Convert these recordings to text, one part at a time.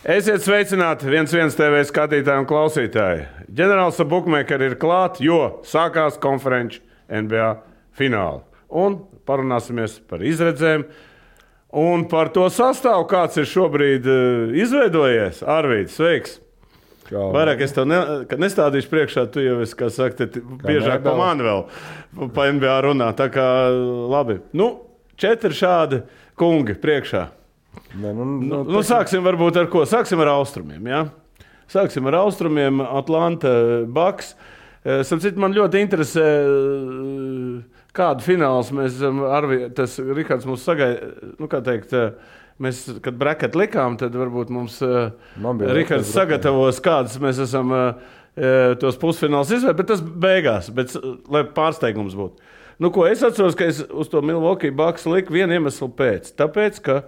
Esiet sveicināti 1-1 TV skatītāji un klausītāji. Ģenerālis Bukmekeri ir klāt, jo sākās konferenču NBA fināli. Un parunāsimies par izredzēm un par to sastāvu, kāds ir šobrīd izveidojies. Arvīds, sveiks! Vairāk es tev nestādīšu priekšā, tu jau esi, kā saka, biežāk pa mani vēl pa NBA runā. Tā kā labi. 4 šādi kungi priekšā. Sāksim varbūt ar ko? Sāksim ar austrumiem, jā? Sāksim ar austrumiem, Atlanta Bucks. Man ļoti interesē, kādu fināls mēs esam, tas Rihards mums sagaida, kā teikt, mēs, kad bracket likām, tad varbūt mums Rihards sagatavos, kādas mēs esam tos pusfināls izvēlēt, bet tas beigās, lai pārsteigums būtu. Ko es atceros, ka es uz to Milwaukee Bucks liku vienu iemeslu pēc. Tāpēc, ka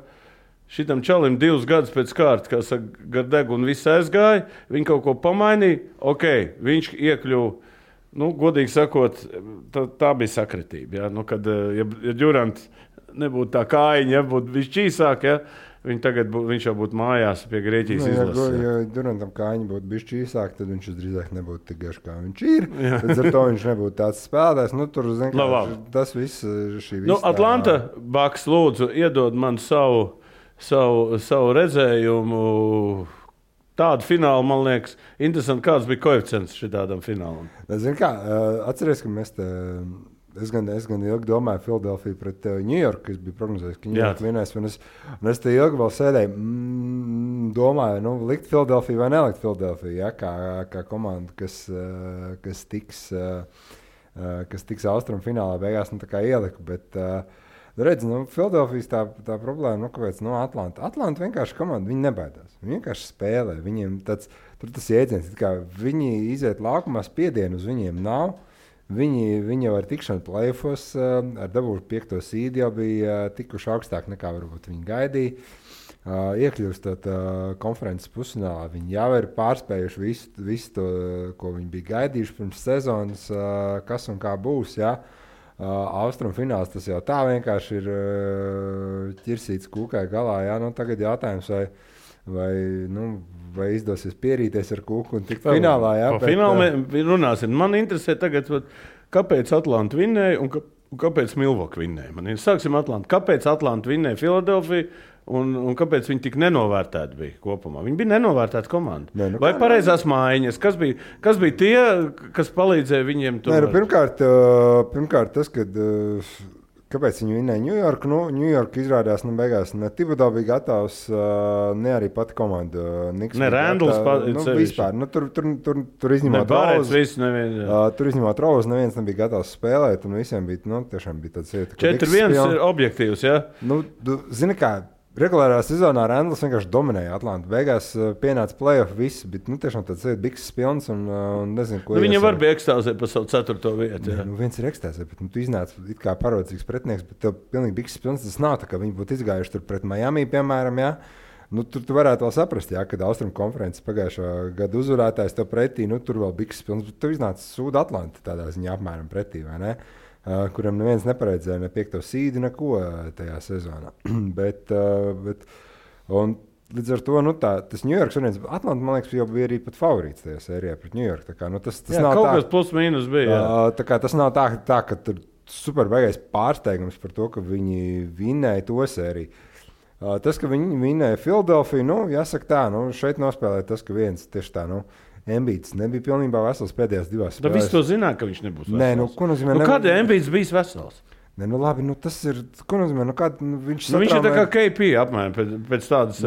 šitam čalim 2 gadus pēc kārtas, kā saka, gar degunu viss aizgāja, viņi kaut ko pamainīja, viņš iekļuva, godīgi sakot, tā bija sakritība. Ja? Kad Durants nebūtu tā kājiņa, ja būtu viņš čīsāk, ja? Viņš jau būtu mājās pie Grieķijas izlases. Ja Durantam kājiņa būtu bijis čīsāk, tad viņš drīzāk nebūtu tik garš, kā viņš ir. Tad ar to viņš nebūtu tāds spēlētājs. Tas viss šī viss. Atlanta Bucks, lūdzu, iedod man savu redzējumu. Tādu finālu, man liekas, interesanti, kāds bija koeficients šitādam finālam. Zini kā, atceries, ka mēs Es gan ilgi domāju Filadelfiju pret New York, kas bija prognozējis, ka New York vinnēs. Un es te ilgi vēl sēdēju, domāju, likt Filadelfiju vai nelikt Filadelfiju, ja, kā komanda, kas tiks austrumu finālā beigās, tā kā ieliku. Bet, redz, Filadelfijas tā problēma, kāpēc Atlanta vienkārši komanda, viņi nebaidās. Viņi vienkārši spēlē. Viņiem tas jēdziens, kā viņi iziet laukumā, spiedienu uz viņiem nav. Viņi jau ar tikšanu play-offos, ar dabūšu 5. seedu jau bija tikuši augstāk nekā varbūt viņi gaidīja. Iekļūstot konferences pusfinālā, viņi jau ir pārspējuši visu to, ko viņi bija gaidījuši pirms sezonas, kas un kā būs. Ja? Austrumu fināls tas jau tā vienkārši ir ķirsīts kūkai galā. Ja? Tagad jautājums, vai izdosies pierīties ar kūku un tikt finālā. Jā, par finālu runāsim. Man interesē tagad, kāpēc Atlanta vinnēja un kāpēc Milwaukee vinnēja. Sāksim Atlanta. Kāpēc Atlanta vinnēja Filadelfiju un kāpēc viņi tik nenovērtēti bija kopumā? Viņi bija nenovērtēti komanda. Vai pareizās mājiņas? Kas bija tie, kas palīdzēja viņiem tur? Pirmkārt tas, kad... Kāpēc viņi vinnēja New York? New York izrādās, beigās ne Thibodeau bija gatavs, ne arī pati komanda. Ne Randalls vispār. Tur izņemot Rouz, neviens nebija gatavs spēlēt, un visiem bija, tiešām bija tāds ieta. 4-1 ir objektīvs, ja? Zini kā, regulārā sezonā Randalls vienkārši dominēja Atlantu. Beigās pienāca play-off viss, bet tiešām tāds bikses pilns un nezinu, ko Viņam var bija ekstāzēt par savu 4. vietu. Ja? Viens ir ekstāzēt, bet tu iznāc it kā parodzīgs pretinieks, bet tev pilnīgi bikses pilns tas nav tā, ka viņi būtu izgājuši tur pret Miami, piemēram, ja? Tur tu varētu vēl saprast, ja, kad Austrumu konferences pagājušā gada uzvarētājs tev pretī, tur vēl bikses pilns, bet tu iznāc Sūda Atlanta tādā ziņā apmēram pretī, vai ne? Kuram neviens neparedzēja ne 5. seedu, neko tajā sezonā. bet līdz ar to tas New York variants, Atlanta, man liekas, jau bija arī pat favorīts tajā sērijā pret New York. Tā kā, tas nav kaut kas plus mīnus bija. Tā kā tas nav tā, ka tur super baigais pārsteigums par to, ka viņi vinnēja to sēriju. Tas, ka viņi vinnēja Filadelfiju, jāsaka tā, šeit nospēlēja tas, ka viens tieši tā, Embiids nebija pilnībā vesels pēdējās 2 spēlēs. Tad viss to zināja, ka viņš nebūs vesels. Ko nozīmē? Kāda Embiids bijis vesels? Labi, tas ir, ko nozīmē? Viņš ir tā kā KP apmēram pēc tādas,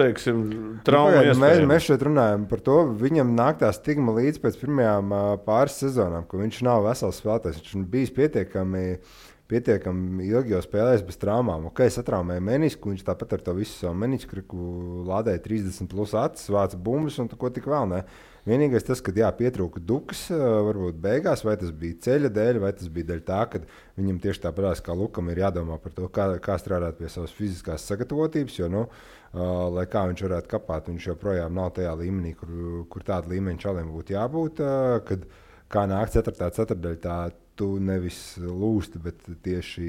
teiksim, traumu iespējām. Mēs šeit runājam par to, viņam nāk tā stigma līdz pēc pirmajām pāris sezonām, ka viņš nav vesels spēlētājs. Viņš bijis pietiekami ilgi jau spēlējis bez traumām. Satraumēja menisku, viņš tāpat ar to visu savu menisku lādēja 30 plus acis, vāca bumbas un ko tik vēl ne. Vienīgais tas, ka pietrūka dukas, varbūt beigās, vai tas bija ceļa dēļ, vai tas bija dēļ tā, ka viņam tieši tāpēc, kā Lukam ir jādomā par to, kā strādāt pie savas fiziskās sagatavotības, jo, lai kā viņš varētu kapāt, viņš joprojām nav tajā līmenī, kur tāda līmeņa čaliem būtu jābūt, kad kā nāk 4. ceturtdaļā, tu nevis lūsti, bet tieši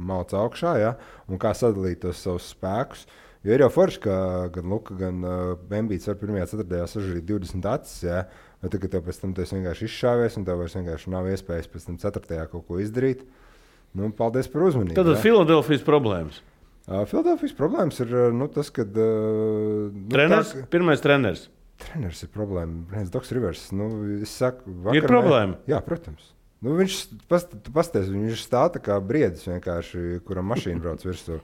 malc augšā, ja? Un kā sadalīt tos savus spēkus. Jo ir jau forši, ka gan Luka, gan Bembīts var pirmajā ceturtajā sažarīt 20 acis, jā. Vai tagad tev pēc tam tu esi vienkārši izšāvies un tev vairs vienkārši nav iespējas pēc tam ceturtajā kaut ko izdarīt. Nu, paldies par uzmanību. Tad Filadelfijas problēmas. Filadelfijas problēmas ir tas, kad... Treneris? Pirmais treneris. Treneris ir problēma. Doks Rivers. Es saku, ir problēma? Jā, protams. Viņš pasties, viņš stāv tā kā briedis vienkārši, kuram mašīna brauc virsū.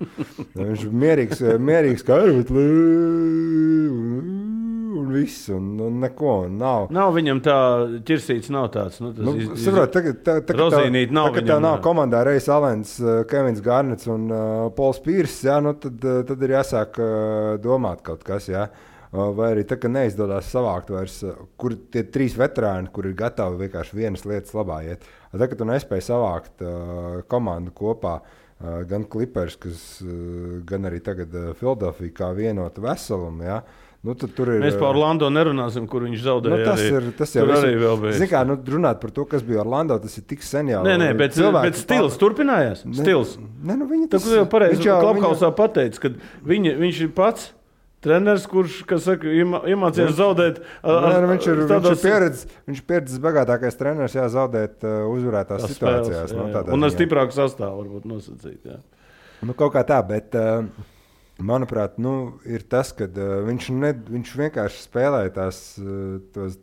Viņš mierīgs kā un viss, un neko, un nav. Nav viņam tā ķirsīts, nav tāds. Saprot, Rozīnīt nav viņam. Tev nav komandā Reis Alens, Kevins Garnets un Pols Pīrs, jā, tad ir jāsāk domāt kaut kas, jā. Vai arī tā, ka neizdodas savākt vairs, kur tie 3 veterāni, kur ir gatavi vienkārši vienas lietas labā iet. Tā, ka tu nespēji savākt komandu kopā, gan Clippers, gan arī tagad Philadelphia kā vienotu veselumu, jā. Tad tur ir... Mēs par Orlando nerunāsim, kur viņš zaudēja. Tas jau arī vēl bija. Zini kā, runāt par to, kas bija Orlando, tas ir tik sen jau. Nē, bet stils turpinājās. Stils. Viņa tas... Tā, jau pareizi Klubhausā pateica, ka viņš ir pats treneris, kurš, kas saka, iemācījās zaudēt. Viņš ir pieredzes bagātākais treneris, zaudēt uzvarētās situācijās. Un ar stiprāku sastāvu varbūt nosacīt. Jā. Kaut kā tā, bet manuprāt, ir tas, ka viņš vienkārši spēlēja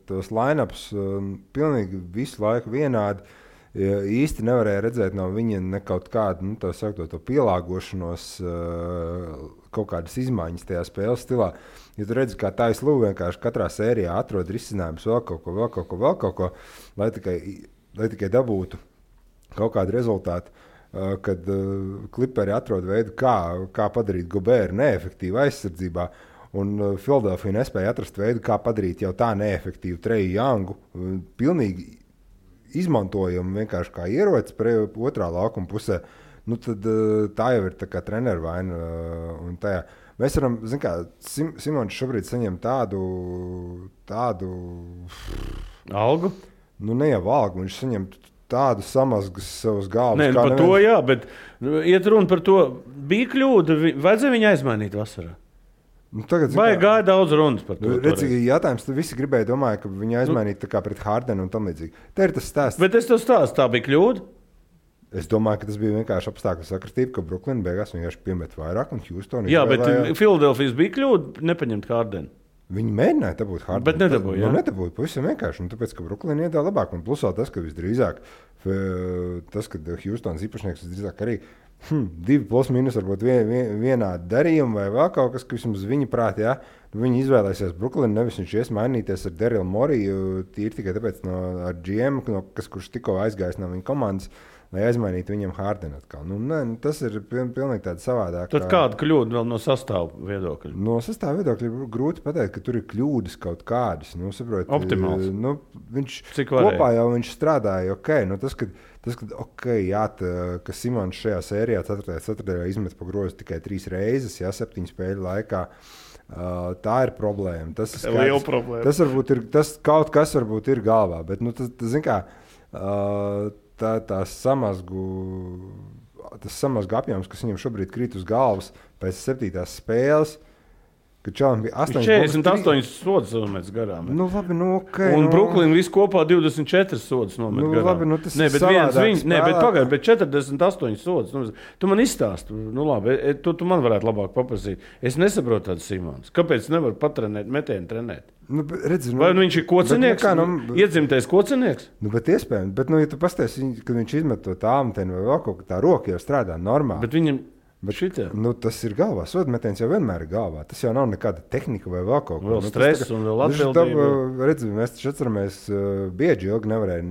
tos line-ups pilnīgi visu laiku vienādi. Īsti nevarēja redzēt no viņa ne kaut kādu to pielāgošanos, kaut kādas izmaiņas tajā spēles stilā. Ja tu redzi, kā Taislu vienkārši katrā sērijā atrod risinājumus vēl kaut ko, lai tikai dabūtu kaut kādu rezultātu, kad Clipperi atrod veidu, kā padarīt Gobēru neefektīvu aizsardzībā. Un Philadelphia nespēja atrast veidu, kā padarīt jau tā neefektīvu Treju Youngu pilnīgi izmantojumu vienkārši kā ierocis otrā laukuma pusē, tad tā jau ir tā kā treneru vaina. Mēs varam, zin kā, Simons šobrīd saņem tādu algu? Ne jau algu, viņš saņem tādu samazgas savus galvas. Nē, par to jā, bet iet runa par to, bija kļūda, vajadzēja viņu aizmainīt vasarā. Vai gāja daudz runas par to? Redzīgi, jautājums, tu visi domāja, ka viņu aizmainīt tā kā pret Hardenu un tam līdzīgi. Te ir tas stāsts. Bet es tev stāstu, tā bija kļūda? Es domāju, ka tas bija vienkārši apstākļu sakritība, ka Brooklyn beigās vienkārši piemet vairāk un Houston. Jā, bet Philadelphijas bija kļūda nepaņemt Hardenu. Viņi mēģināja dabūt Hardenu. Bet nedabūja. Nedabūja, pavisam vienkārši. Tāpēc, ka Brooklyn iedā labāk. Un plusā tas, ka visdrīzāk, kad Houstons īpašnieks visdrīzāk arī 2 plus mīnus varbūt vienādi darījumi vai vēl kaut kas, kas vismaz viņa prāt, jā. Viņi izvēlēsies Brooklyn, nevis viņš ies mainīties ar Daryl Moriju, tīri tikai tāpēc ar GM, kurš tikko aizgājis no viņa komandas, lai aizmainītu viņam Hardenu atkal. Tas ir pilnīgi tāda savādāk. Tad kāda kļūda vēl no sastāvu viedokļa? No sastāvu viedokļa ir grūti pateikt, ka tur ir kļūdas kaut kādas. Optimāls. Viņš kopā jau viņš strādāja, ka Simons šajā sērijā 4. izmet pa grozu tikai 3 reizes, 7 spēļu laikā. Tā ir problēma. Tas ir liela problēma. Tas kaut kas varbūt ir galvā, bet zin kā, tas samazgu apjoms, kas viņam šobrīd krīt uz galvas pēc 7. spēles, kad Čalam bija 48 sodas nometas garām. Labi, okay, un Brooklyn visu kopā 24 sodas nomet garām. Labi, tas ir savādāk. Bet 48 sodas. Tu man izstāsti. Labi, tu man varētu labāk paprasīt. Es nesaprotu tādu Simons. Kāpēc nevar patrenēt, metienu trenēt? Vai viņš ir kocinieks? Iedzimtais kocinieks? Bet iespējams. Bet, ja tu pasties, kad viņš izmet to tālmetienu vai vēl kaut kā tā roka jau strādā normāli. Bet viņam... tas ir galvā. Sodmetiens jau vienmēr ir galvā. Tas jau nav nekāda tehnika vai vēl kaut ko. Vēl stress un vēl atbildība. Mēs taču atceramies, bieži ilgi nevarēja.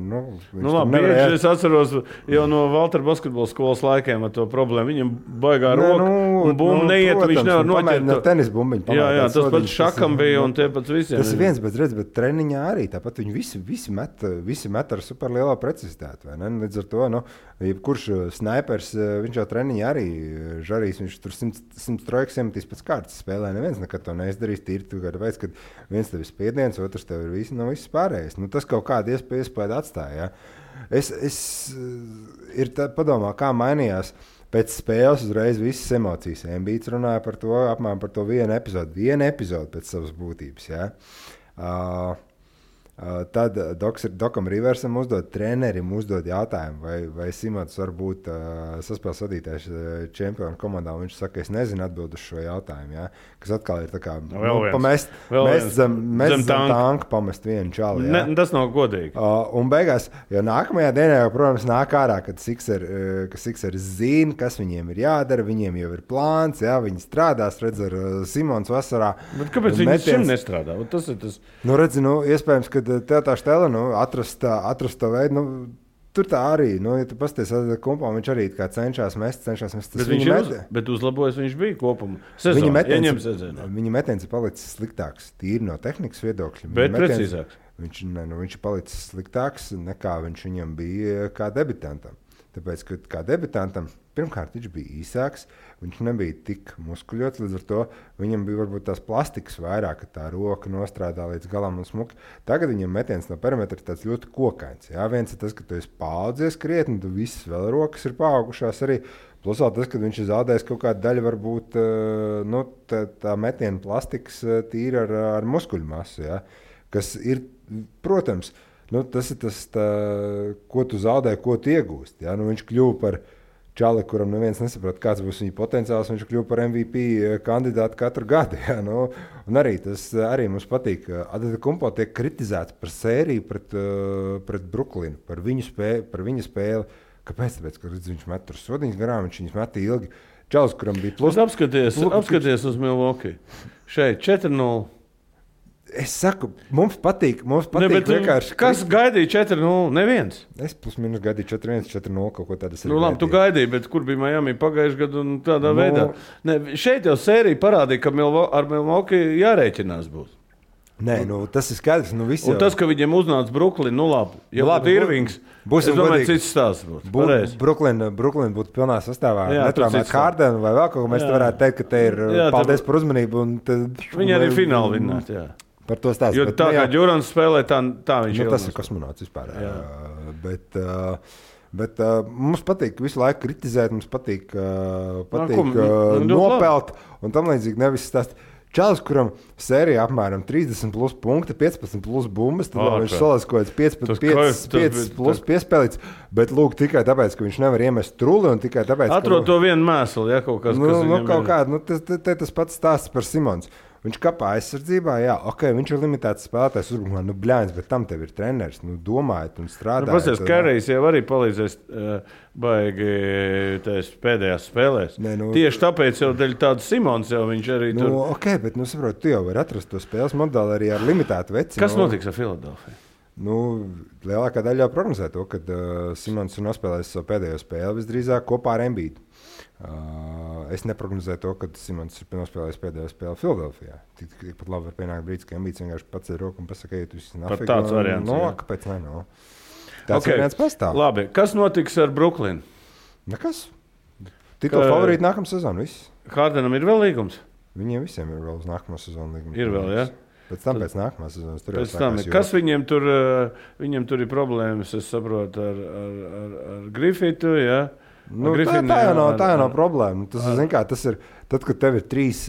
Bieži es atceros jau no Valtera basketbola skolas laikiem ar to problēmu. Viņam baigā roka un bumba neiet, protams, viņš nevar noķert. Tenis bumbiņu. Jā, tas pats šakam bija un tie pats visiem. Tas ir viens, bet treniņā arī. Tāpat viņi visi met ar superlielā precizitāti. Līdz ar to, jebkurš snaipers, viņš jau treniņā arī žarīs, viņš tur 100 trojkas iemetīs pēc kārtas spēlē. Neviens nekad to neizdarīs. Tīri tu kādu veids, kad viens tev ir spiediens, otrs tev ir viss pārējais. Tas kaut kādu iespēju atstāja. Ja? Ir padomā, kā mainījās pēc spēles uzreiz visas emocijas. Embiids runāja par to, apmēram par to vienu epizodu pēc savas būtības. Ja? Tad Dokam Riversam trenerim uzdod jautājumu, vai Simons var būt saspēles vadītājs čempionu komandā. Viņš saka, es nezinu atbildu uz šo jautājumu. Ja? Kas atkal ir tā kā pamest zem tanka, pamest vienu čali. Ja? Tas nav godīgi. Un beigās, jo nākamajā dienā jau, protams, nāk ārā, kad Sixers zina, kas viņiem ir jādara, viņiem jau ir plāns, ja? Viņi strādās, redz ar Simons vasarā. Bet kāpēc viņi šim nestrādā? Tas ir tas. Nu, redzi, iespējams, ka tev tā štela, atrast to veidu, tur tā arī, ja tu pasties kompā, viņš arī kā cenšas mest. Bet uzlabojas viņš bija kopumā. Viņa metiens ir palicis sliktāks, tīri no tehnikas viedokļa. Bet precīzāks. Viņš ir palicis sliktāks, nekā viņš viņam bija kā debitantam. Tāpēc, ka kā debitantam, pirmkārt, viņš bija īsāks, viņš nebija tik muskuļots, līdz ar to viņam bija varbūt tās plastikas vairāk, ka tā roka nostrādā līdz galam un smuki. Tagad viņam metiens no perimetra ir tāds ļoti kokains. Jā, viens ir tas, ka tu esi paaudzies krietni, tu visas vēl rokas ir paaugušās arī. Plus vēl tas, ka viņš ir zaudējis kaut kādu daļu, varbūt tā metiena plastikas tīri ar muskuļu masu, jā, kas ir, protams, tas ir tas, ko tu zaudē, ko tu iegūsti. Ja? Viņš kļuva par čali, kuram neviens nesaprot, kāds būs viņa potenciāls. Viņš kļuva par MVP kandidātu katru gadu. Ja? Un arī tas arī mums patīk. Adetokumpo tiek kritizēts par sēriju pret Brooklynu, par viņa spēli. Kāpēc? Tāpēc, ka viņš met tur sodiņas garām, viņš viņus met ilgi. Čalis, kuram bija plus. Apskaties uz Milwaukee. Šeit 4-0. Es saku, mums patīk vienkārši. Kas gaidīja 4-0? Neviens. Es plus minus gaidīju 4-1, 4-0, kaut ko tādu. Labi, tu gaidīji, bet kur bija Miami pagājušajā gadā un tādā veidā? Ne, šeit jau sērija parādīja, ka ar Milwaukee jārēķinās būs. Nē, tas ir skaidrs. Un tas, ka viņiem uznāca Brooklyn, labi. Ja būtu Irvings, es domāju, cits stāsts būtu. Brooklyn būtu pilnā sastāvā. Netraumēt Hardenu vai vēl kaut ko. Mēs varētu teikt, ka te ir paldies par uzmanību. Viņi arī fināli vinnāt, jā. Par to stāstu. Jo tā kā Džurans spēlē, tā viņš ir. Tas ir kosmonauts vispār. Bet mums patīk visu laiku kritizēt, mums patīk nopelt un tam līdzīgi nevis stāst. Čalis, kuram sērijā apmēram 30 plus punkti, 15 plus bumbas, tad viņš salās kaut kāds 5 plus piespēlīts, bet lūk tikai tāpēc, ka viņš nevar iemest truli un tikai tāpēc, Atrod to vienu mēslu, ja kaut kas, kas viņam kaut kādu, tas pats stāsts par Simons. Viņš kapā aizsardzībā, jā, viņš ir limitēts spēlētājs uzbrukumā, bļāņas, bet tam tev ir treneris, domājiet un strādājiet. Pasies, Karijs jau arī palīdzēs baigi pēdējās spēlēs. Tieši tāpēc jau dēļ tādu Simons jau viņš arī tur. Bet, saprot, tu jau vari atrast to spēles modeli arī ar limitētu veci. Kas notiks ar Filadelfiju? Lielākā daļa jau prognozē to, ka Simons ir nospēlējis savu pēdējo spēli visdrīzāk kopā ar Embiidu. Es neprognozēju to, ka Simons ir nospēlējis pēdējo spēli Filadelfijā. Tikpat labi var pienākt brīdis, ka Embiids vienkārši paceļ roku un pasaka, ka tu esi nafīgi. Tāds variants. Kāpēc ne? Tāds variants pastāv. Labi, kas notiks ar Brooklynu? Nekas. Titula favorīti nākamā sezona, viss. Hardenam ir vēl līgums? Viņiem visiem ir vēl uz nākamā sezona līgums. Ir vēl, jā? Pēc nākamās sezonas tur jau sākās. Kas viņiem tur ir problēmas, es saprotu, ar Griffitu, jā? Tā jau nav problēma. Tas ir tad, kad tev ir trīs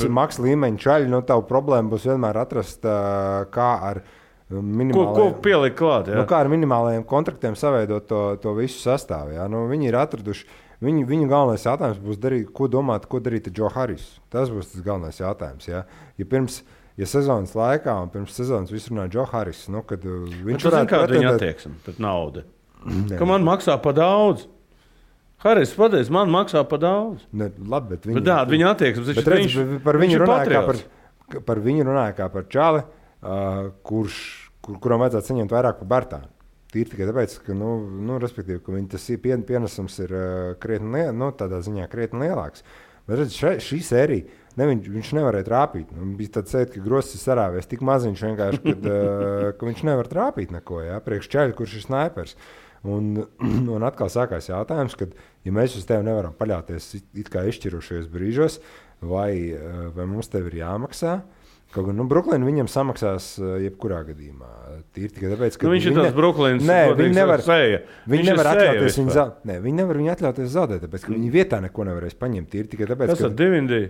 maks līmeņa čaļi, tavu problēma būs vienmēr atrast, kā ar minimālajiem. Ko pielikt klāt, jā? Kā ar minimālajiem kontraktiem saveidot to visu sastāvu, jā? Viņi ir atraduši. Viņu galvenais jautājums būs ko darīt ar Joe Harrisu. Tas būs tas galvenais jautājums, jā? Ja sezonas laikā un pirms sezonas viss runā Joe Harris, kad viņš varētu pretendēt... Viņa attieksme pret naudu. Ka man maksā pa daudz. Haris, pateic, man maksā pa daudz. Labi, bet viņa attieksme. Par viņu runāja kā par čali, kuram vajadzētu saņemt vairāk par Bartānu. Tīri tikai tāpēc, ka, respektīvi, ka viņa tas pienesums ir krietni, tādā ziņā krietni lielāks. Bet redz, šī sērija, viņš nevarēja trāpīt. Bija tāds sēd, ka Gross ir sarāvies tik maziņš vienkārši, ka viņš nevar trāpīt neko, jā, priekš čaļa, kurš ir snaipers. Un atkal sākās jautājums, kad, ja mēs uz tevi nevaram paļauties it kā izšķirošajos brīžos, vai mums tev ir jāmaksā, Kaut gan Brooklyna viņam samaksās jebkurā gadījumā. Tīri tikai tāpēc, ka viņš ir tāds Brooklynas viņi nevar atļauties viņi nevar viņu atļauties zaudēt, tāpēc, ka viņi vietā neko nevarēs paņemt. Tīri tikai tāpēc, kas ar Divindy?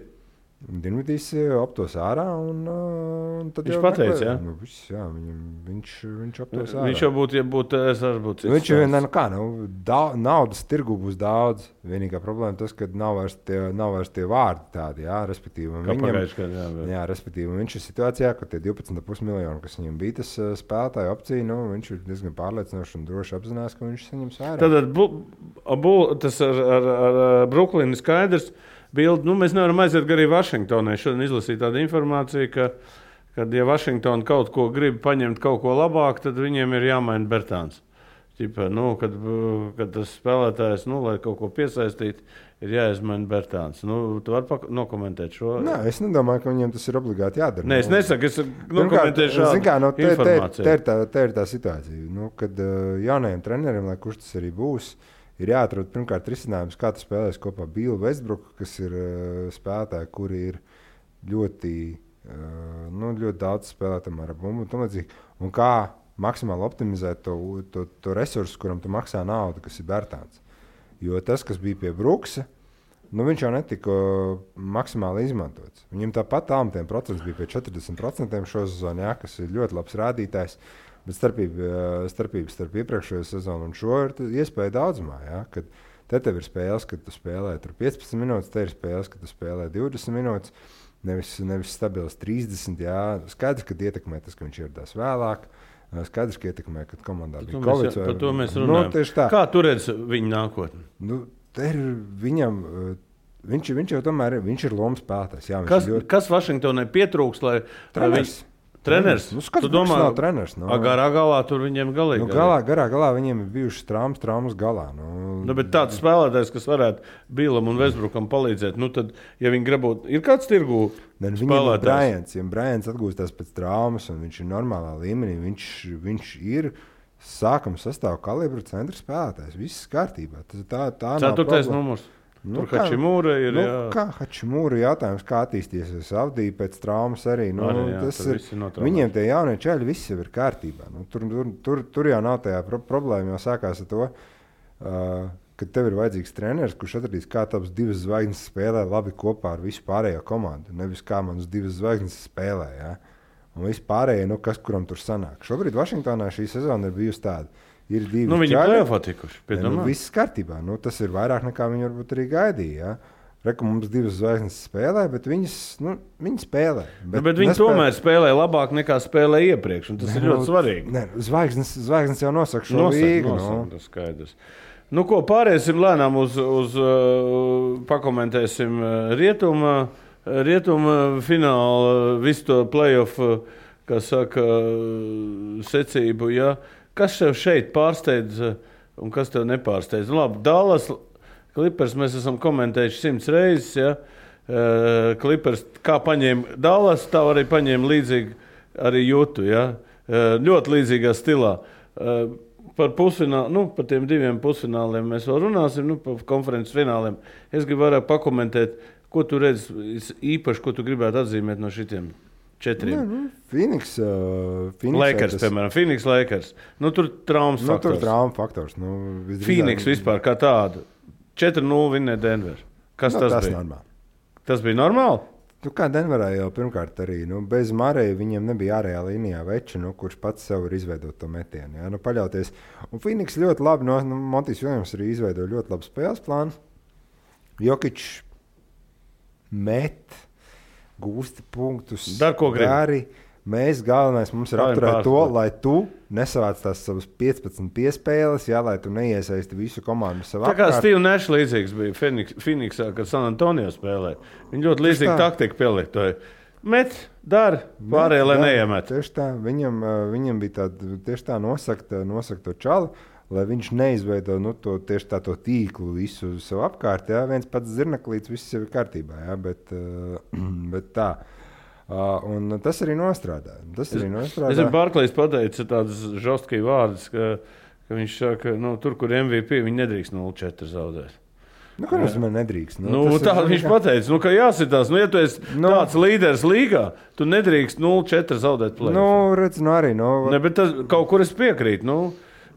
Dinvidijs aptos ārā un tad viņš pateica, jā? Nu, jā, viņš aptos ārā. Viņš jau būtu, ja būtu, es arī būtu cits. Viņš naudas tirgu būs daudz. Vienīgā problēma tas, ka nav vairs tie vārdi tādi, jā, respektīvi. Respektīvi, viņš ir situācijā, ka tie 12,5 miljoni, kas viņam bija tas spēlētāju opcija, viņš ir diezgan pārliecinoši un droši apzinās, ka viņš saņems ārā. Tad tas ar Brooklynu skaidrs. Bildi, mēs nevaram aiziet arī Vašingtonai. Šodien izlasīju tādu informāciju, ka, ja Vašingtona kaut ko grib paņemt kaut ko labāk, tad viņiem ir jāmaina Bertāns. Ķipa, kad tas spēlētājs, lai kaut ko piesaistītu, ir jāizmaina Bertāns. Tu vari nokomentēt šo? Nē, es nedomāju, ka viņiem tas ir obligāti jādara. Nē, es nesaku, es nokomentēju šādu informāciju. Te ir tā situācija, kad jaunajiem treneriem, lai kurš tas arī būs, ir jāatrod pirmkārt risinājums, kā tu spēlēsi kopā Billu Westbrooku, kas ir spēlētāji, kuri ir ļoti daudz spēlētājiem ar bumbu un tam līdzīgi. Un kā maksimāli optimizēt to resursu, kuram tu maksā naudu, kas ir Bertāns. Jo tas, kas bija pie Brooksa, viņš jau netika maksimāli izmantots. Viņam tāpat tālmetiem procents bija pie 40% šo sezonu, kas ir ļoti labs rādītājs. Bet starpība starp iepriekšējo sezonu un šo ir iespēja daudzumā. Ja? Kad tev ir spēles, kad tu spēlē 15 minūtes, te ir spēles, kad tu spēlē 20 minūtes, nevis stabils 30. Ja? Skaidrs, ka ietekmē tas, ka viņš ieradās vēlāk. Skaidrs, ka ietekmē, kad komandā bija Covid. Par to mēs runājam. Kā tu redzi viņa nākotni? Viņš jau tomēr viņš ir lomas spēlētājs. Kas Vašingtonai pietrūks, lai viņš... Treneris? Tu domā, nav treneris. Garā galā tur viņiem galīgi. Garā galā viņiem ir bijušas traumas galā. Bet tāds spēlētājs, kas varētu Billam un Westbrookam palīdzēt, tad, ja viņi gribot, ir kāds tirgū spēlētājs? Ja Bryants atgūstās pēc traumas un viņš ir normālā līmenī, viņš ir sākuma sastāvā kalibra centra spēlētājs. Viss kārtībā. Tā 4. numurs. Tur Hačimūra ir. Kā Hačimūra jautājums, kā attīstīsies Avdija pēc traumas arī. Viņiem tie jaunie čaļi viss jau ir kārtībā. Tur jau nav tajā problēma, jau sākās ar to, ka tev ir vajadzīgs treneris, kurš atradīs, kā tavas 2 zvaigznes spēlē labi kopā ar visu pārējo komandu. Nevis kā manas 2 zvaigznes spēlē. Ja? Un viss pārējie, kas kuram tur sanāk. Šobrīd Vašingtonā šī sezona ir bijusi tāda. Ir 2 viņi play-offā tikuši. Viss kārtībā. Tas ir vairāk nekā viņi varbūt arī gaidīja. Ja? Reku mums 2 zvaigznes spēlē, bet viņi spēlē. Bet viņi tomēr spēlē labāk nekā spēlē iepriekš. Tas ir ļoti svarīgi. Zvaigznes jau nosaka šo līgu. Tas skaidrs. Ko pāriesim lēnām uz pakomentēsim rietuma fināla, visu to play-off, kā saka, secību, ja? Kas tev šeit pārsteidz un kas tev nepārsteidz? Labi, Dallas Clippers mēs esam komentējuši 100 reizes. Ja? Clippers kā paņēma Dallas, tā arī paņēma līdzīgi arī Jutu. Ja? Ļoti līdzīgā stilā. Par pusfinālu, par tiem 2 pusfināliem mēs vēl runāsim, par konferences fināliem. Es gribu vairāk pakomentēt, ko tu redzi īpaši, ko tu gribētu atzīmēt no šitiem 4. Phoenix Lakers, piemēram. Phoenix Lakers. Tur traumas faktors. Tur trauma faktors. Phoenix vispār kā tādu. 4-0 vinnē Denver. Kas tas bija? Normāli. Tas bija normāli? Kā Denverā jau pirmkārt arī. Bez Mareja viņiem nebija ārējā līnijā veča, kurš pats sev ir izveidot to metienu. Ja? Paļauties. Un Phoenix ļoti labi, Montijs Viljams arī izveidoja ļoti labu spēles plānu. Jokić met. Gūsti punktus, dari. Mēs galvenais mums ir apturēt to, lai tu nesavāc tās savas 15 piespēles, lai tu neiesaisti visu komandu savā apkārt. Tā kā Steve Nash līdzīgs bija Phoenixā, kad San Antonio spēlēja. Viņi ļoti līdzīgi taktiku pielietoja. Met, dari, pārējie, lai neiemet. Tieši tā, viņam bija tāda, tieši tā nosaka to čalu, lai viņš neizveido tieši to tīklu visu sev apkārt. Ja? Viens pats zirnaklīts, viss jau ir kārtībā. Ja? Bet tā. Un tas arī nostrādā. Es ar Barklejs pateicu tādas žostki vārdus, ka viņš saka, tur, kur MVP, viņi nedrīkst 0-4 zaudēt. Nu, ko nozīmē nedrīkst? Tā viņš pateica, ka jāsitās. Ja tu esi tāds līderis līgā, tu nedrīkst 0-4 zaudēt play-off. Redz, arī. Ne, bet tas, kaut kur es piekrītu.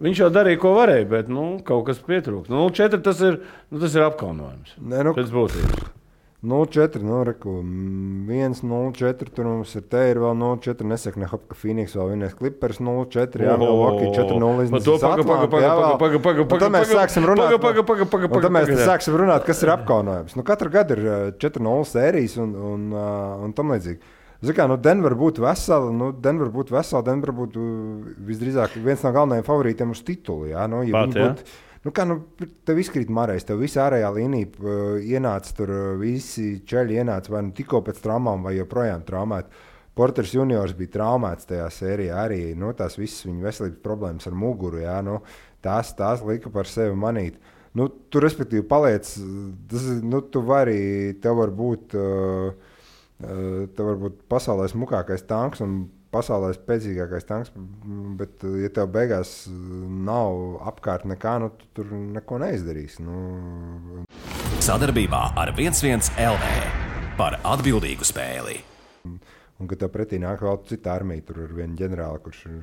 Viņš jau darīja, ko varēja, bet kaut kas pietrūkst. 0-4 tas ir apkaunojums. Pēc būtības. 0-4, 1-0-4, tur mums ir vēl 0-4, nesaka ne hop, ka Phoenix vēl vienais Clippers 0-4, jā, Milwaukee 4-0 iznīcīs Atlantu. Un tad mēs sāksim runāt, kas ir apkaunojums. Katru gadu ir 4-0 sērijas un tam līdzīgi. Denver būtu vesela, Denver būtu visdrīzāk viens no galvenajiem favorītiem uz titulu, jā, tev izkrīt Marais, tev visa ārējā līnija ienāca tur, visi čeļi ienāca vai tikko pēc traumām vai joprojām traumēti. Porters juniors bija traumēts tajā sērijā arī, tās visas viņa veselības problēmas ar muguru, jā, tās lika par sevi manīt. Tu respektīvi paliec, tu vari, tev var būt pasaulē smukākais tanks un pasaulē spēcīgākais tanks, bet, ja tev beigās nav apkārt nekā, tu tur neko neizdarīsi. Sadarbībā ar 1-1 LV par atbildīgu spēli. Un, kad tev pretī nāk vēl cita armija, tur ir viena ģenerāla, kurš ir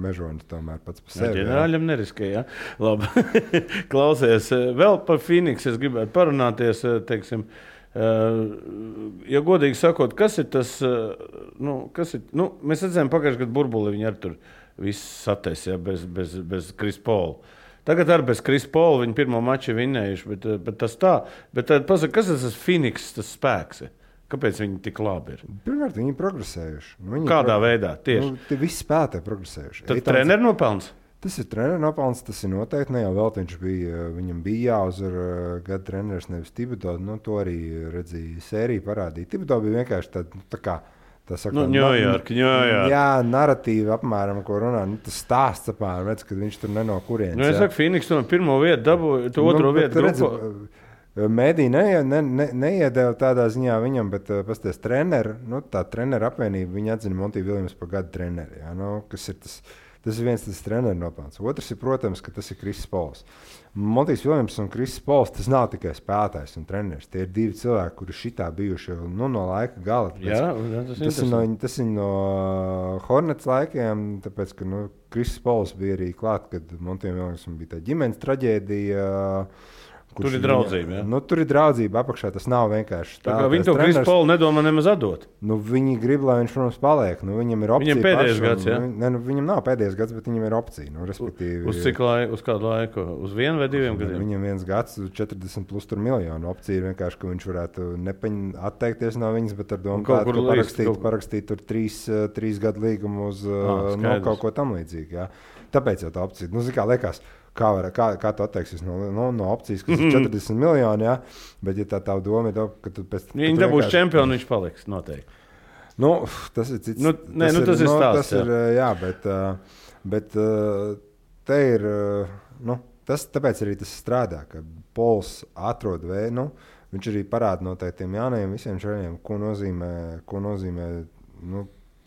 mežonis tomēr pats par sevi. Ģenerāļam neriskē, jā. Labi. Klausies, vēl par Phoenix es gribētu parunāties, teiksim, ja godīgi sakot, kas ir tas, mēs redzējām pagājušajā gadu burbuli, viņi ar tur viss satais, ja, bez Chris Paula. Tagad ar bez Chris Paula viņi pirmo maču vinnējuši, bet tas tā. Bet tad pasaka, kas tas Phoenix, tas spēks ir? Kāpēc viņi tik labi ir? Pirmkārt, viņi ir progresējuši. Kādā veidā? Tieši. Tie visi spēlētāji progresējuši. Tad treneru nopelns? Tas ir treneru nopelns, tas ir noteikti. Ne jau vēl viņam bija jāuzvar gada treneris, nevis Thibodeau. To arī redzēja sērija parādīja. Thibodeau bija vienkārši tā kā Ņujorka. Jā, narratīva apmēram, ko runā. Tas stāsts apmēram, redz, kad viņš tur neno kurienes. Es saku, Phoenix to pirmo vietu dabūja, to otro vietu grupu. Mēdī neiedēva tādā ziņā viņam, bet pasties treneru, tā treneru apvienība, viņa atzina Monty Williams par gadu treneri. Jā, kas ir tas ir viens tas treneru nopelns. Otrs ir, protams, ka tas ir Chris Pauls. Montijs Viljams un Chris Pauls, tas nav tikai spēlētājs un treneris. Tie ir divi cilvēki, kuri šitā bijuši no laika gala. Tas ir no Hornets laikiem, tāpēc, ka Chris Pauls bija arī klāt, kad Montijam Viljams bija tā ģimenes traģēdija. Tur ir draudzība. Ja? Tur ir draudzība apakšā. Tas nav vienkārši tā. Viņi to Chris Paul nedomā nemaz atdot. Viņi grib, lai viņš, protams, paliek. Viņam ir opcija. Viņam pēdējais gads, jā? Viņam nav pēdējais gads, bet viņam ir opcija. Respektīvi, uz cik laiku? Uz kādu laiku? Uz 1 vai 2 gadiem? Viņam viens gads, 40 plus miljonu. Opcija ir vienkārši, ka viņš varētu atteikties no viņas, bet ar domu parakstīt tur 3 gadu līgumu uz kaut ko tam līdzīgu. Jā. Tāpēc jau tā opcija. Kā liekas, kā tu atteiksies no opcijas, kas ir 40 miljoni, jā, bet ja tā doma ir, ka tu pēc... Viņi dabūs čempionu, viņš paliks noteikti. Tas ir cits... tas ir stāsts. Jā, bet te ir... tāpēc arī tas strādā, ka Pauls atrod vēju, viņš arī parāda noteikti tiem jaunajiem visiem šajiem, ko nozīmē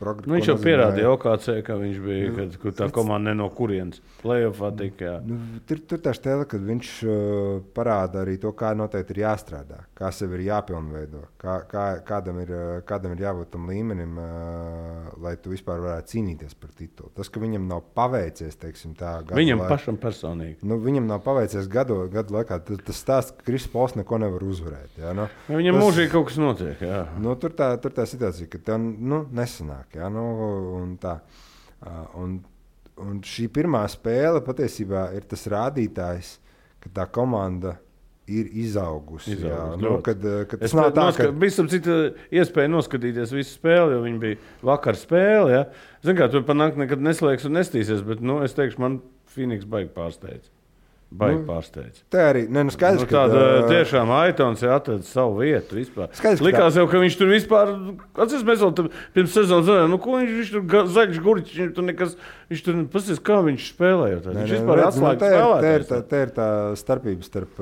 viņš jau pierādīja OKC, ka viņš bija, kad tā komanda ne no kurienes play-offā tika. Tur tā stēle, kad viņš parāda arī to, kā noteikti ir jāstrādā, kā sev ir jāpilnveido, kādam ir jābūt tam līmenim, lai tu vispār varētu cīnīties par titulu. Tas, ka viņam nav paveicies, teiksim tā, viņam pašam personīgi. Viņam nav paveicies gadu laikā, tas stāsts, ka Chris Pauls neko nevar uzvarēt. Jā, viņam mūžīgi kaut kas notiek, jā. Tur tā situācija, ka tev nesanāk. Ja, un šī pirmā spēle patiesībā ir tas rādītājs, ka tā komanda ir izaugusi. Kad tas nav tā, ka... Visam cita iespēja noskatīties visu spēli, jo viņi bija vakar spēle. Ja? Zin kā, tur panāk nekad neslēgs un nestīsies, bet es teikšu, man Phoenix baigi pārsteidz. Pārsteidz. Tā arī skaidrs, ka tiešām Aitons atrada savu vietu vispār. Likās jau, ka viņš tur vispār, atceries, mēs vēl pirms sezonas zinājām, ko viņš tur zaļš gurķis, viņš tur pasties, kā viņš spēlēja. Viņš vispār atslēga spēlētājs. Tā ir tā starpība starp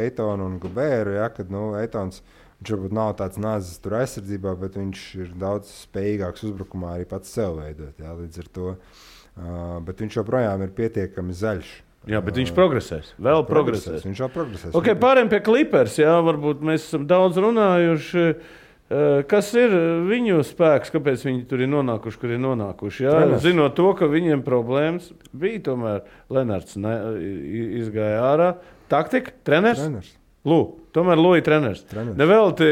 Aitonu un Gobēru, ja, kad Aitons, viņš varbūt nav tāds nāzes tur aizsardzībā, bet viņš ir daudz spējīgāks uzbrukumā arī pats sev veidot, ja, līdz ar to. Bet viņš joprojām ir pietiekami zaļš. Jā, bet viņš progresēs. Vēl progresēs. Viņš vēl progresēs. Okay, pārējiem pie Clippers, jā, varbūt mēs esam daudz runājuši. Kas ir viņu spēks, kāpēc viņi tur ir nonākuši, kur ir nonākuši? Jā, zinot to, ka viņiem problēmas bija, tomēr Lenards izgāja ārā. Taktika, treneris? Tomēr Lūija treneris. Nevelti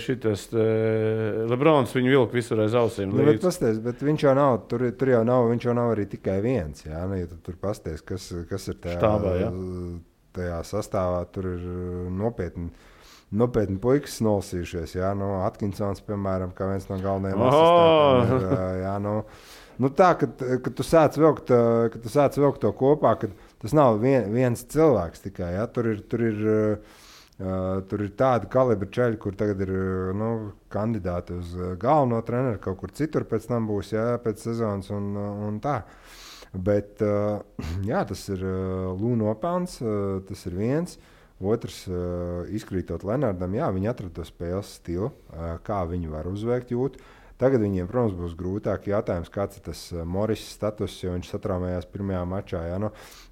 šitas Lebrons viņu vilka visur aiz ausīm. Bet viņš jau nav, tur jau nav, viņš jau nav arī tikai viens. Jā, nu, ja tu tur pasties, kas ir tajā sastāvā, tur ir nopietni puikas nolasījušies. Jā, nu, Atkinsons, piemēram, kā viens no galvenajiem asistentiem. Jā, nu tā, kad tu sāc vilkt to kopā, kad tas nav viens cilvēks tikai. Jā, tur ir tādi kalibri čeļi, kur tagad ir kandidāti uz galveno treneru, kaut kur citur pēc tam būs, jā, pēc sezonas un tā. Bet jā, tas ir Lū nopelns, tas ir viens. Otrs, izkrītot Lenardam, jā, viņi atrada to spēles stilu, kā viņi var uzveikt jūtu. Tagad viņiem, protams, būs grūtāk jautājums, kāds ir tas Morris status, jo viņš satraumējās pirmajā mačā. Jā, nu,